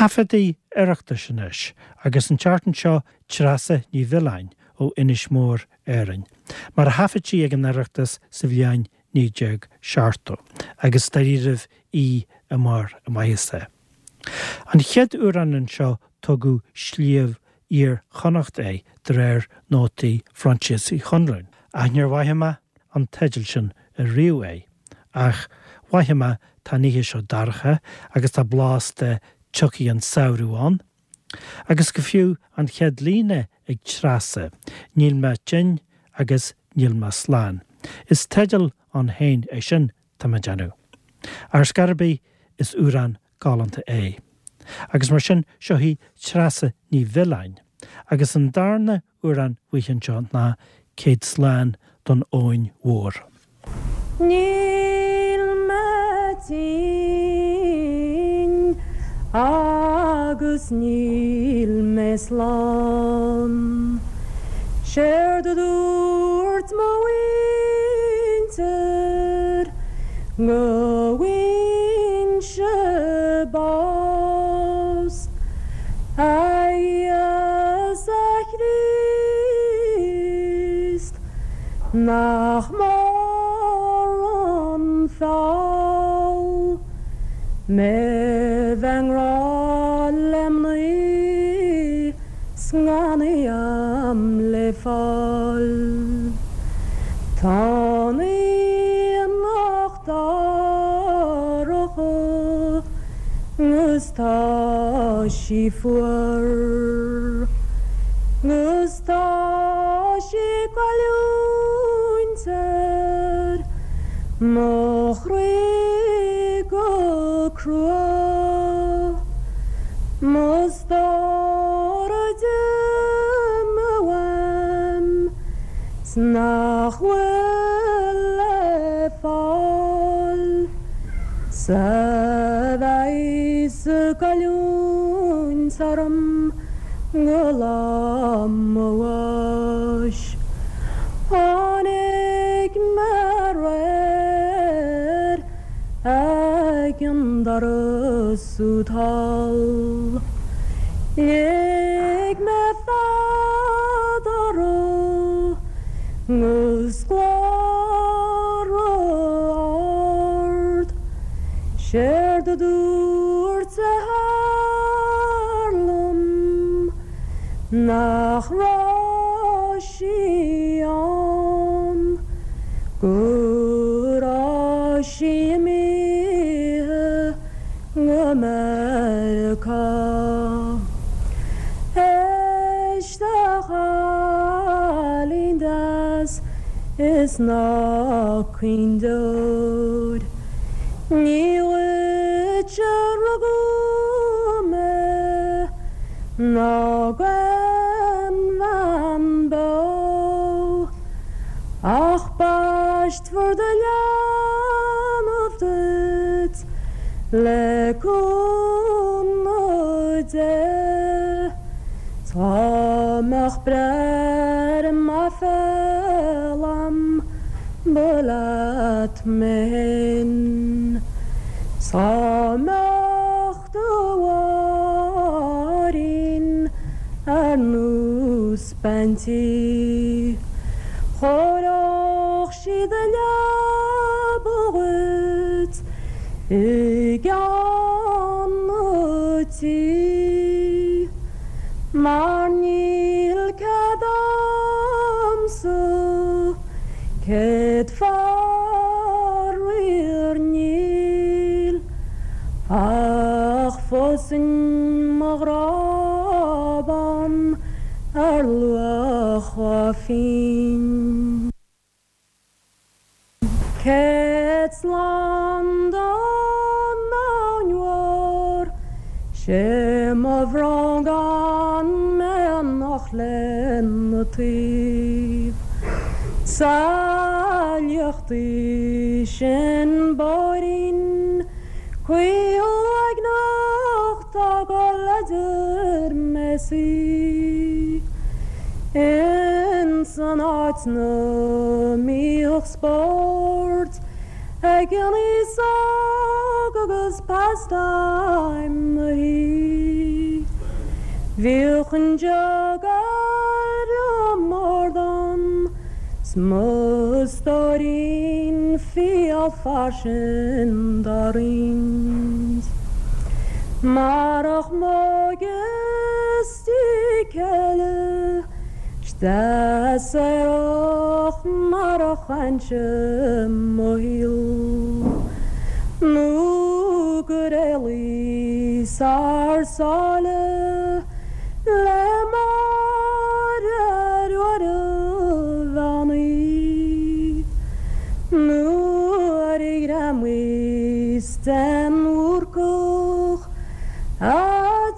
Taifeadtaí Oireachtais anois, agus an tseachtain seo Treasa Ní Mhiolláin ó Inis Mór, Árainn, mar a thaifead sí ag an Oireachtas sa bhliain 1970, agus dáiríribh í i mbarr a maitheasa. An chéad amhrán anseo tugadh Sliabh Iar-Chonnacht é de réir nótaí Phroinsias Uí Chonluain, ach níor mhaith mé an teideal sin ariamh é, ach mhaith mé tá an oíche seo dorcha agus tá blas de tiocfaidh an samhradh ann. Agus go fiú an chéad líne ag Treasa, Níl mé tinn agus níl mé slán. Is teideal ann féin é sin, tá mé ag déanamh. Ar scor ar bith, is amhrán galánta é. Agus mar sin, seo í Treasa Ní Mhiolláin. Agus an darna amhrán uaithi anseo ná Céad Slán don Abhainn Mhór. Níl mé tinn agus níl mé slán. Séard a dúirt mo mhuintir go bhfuighinn-se bás. A Íosa Chríost. Nach mór an feall mé bheith i ngrá le mnaoi 's gan í a'm le fáil. Tá an aonach dorcha 'gus tá sí fuar 'gus Tá sí ag goilliúint ar mo chroí go crua. Mo stór a d'imigh uaim 's nach bhfuil le fáil 's a bheas ag goilliúint orm. Go lá mo bháis. Tháinig mé aréir ag an doras úd thall. Lig mé fead orthu 'gus glór ard. Séard a dúirt a hathair liom nach raibh sí ann, go raibh sí imithe go Meiriceá. Éist a chailín deas is ná caoin deoir. Ní dhuit a rugadh mé ná d'aon bhean beo, ach baistfear do leanbh duit le cúnamh Dé. Dá mbeadh breith ar m'aiféala a'm ba leat mé fhéin. 'S dá mbeadh do mháithrín ar nós bean tí, Chóireodh sí do leaba dhuit i gceann an tí. Mar níl cead a'msa Céad faraor níl ach phósfainn mo ghrá bán ar luach dhá phingin. Céad slán don abhainn mhór, 'sé mo bhrón gan mé anocht lena taobh. Sa fhliuch í sin bóithrín caol uaigneach tá gol idir mé 's í. Ins an áit 'na mbíodh spórt ag an aos óg agus pastime na hí. Bhíodh an jug ar an mbord a'm 's mo stóirín fial fairsing dá roinnt. Marach m'óige 's céile 's deas aerach mar a chaithfinnse mo shaol nó gur éalaíos thar sáile le Máire Ruaidh Bhean Í nuair a ghreamaíos den Bhúrcach A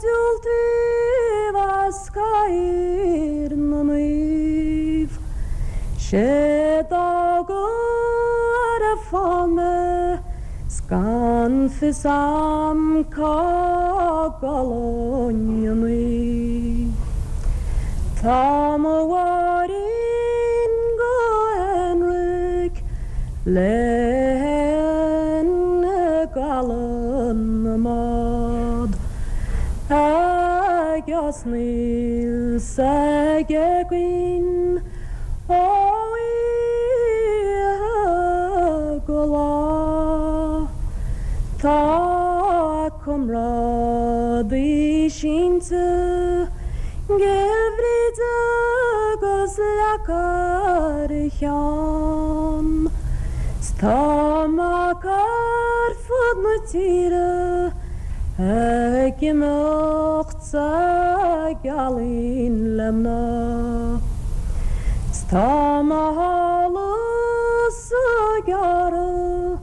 diúltaíodh as Cathaoir na Naomh, 'sé d'fhág ar an bhfán mé 's gan fios a'm cá gcodlóinn an oíche. Tá mo Mháirín go haonraic léi i gcaladh na mbád ag osnaíl 's ag éagaoin ó oíche go lá. Tá a comrádaí sínte 'gCill Bhríde agus leac ar a cheann. 'S tá mac ar fud na tíre ag imeacht sa ghealaín le mná. 'S tá mo shála-sa gearrtha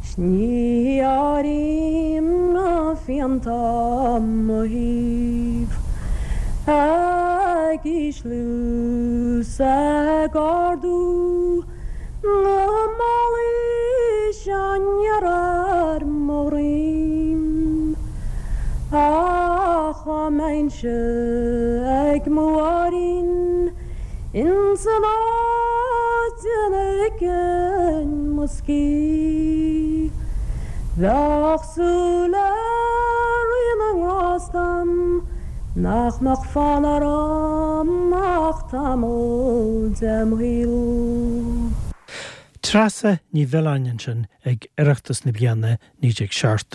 's ní áirím na fianta mo thaobh ag ísliú 's ag ardú Na málaí seo aniar ar mo dhroim Ach dá mbeinnse ag mo Mháirín Ins an áit ina ligfinn mo scíth Bheadh súil le Rí na nGrást a'm Nach mbeadh fonn orm ach tamall dem shaol. Treasa Ní Mhiolláin ansin ag Oireachtas na bliana 1970.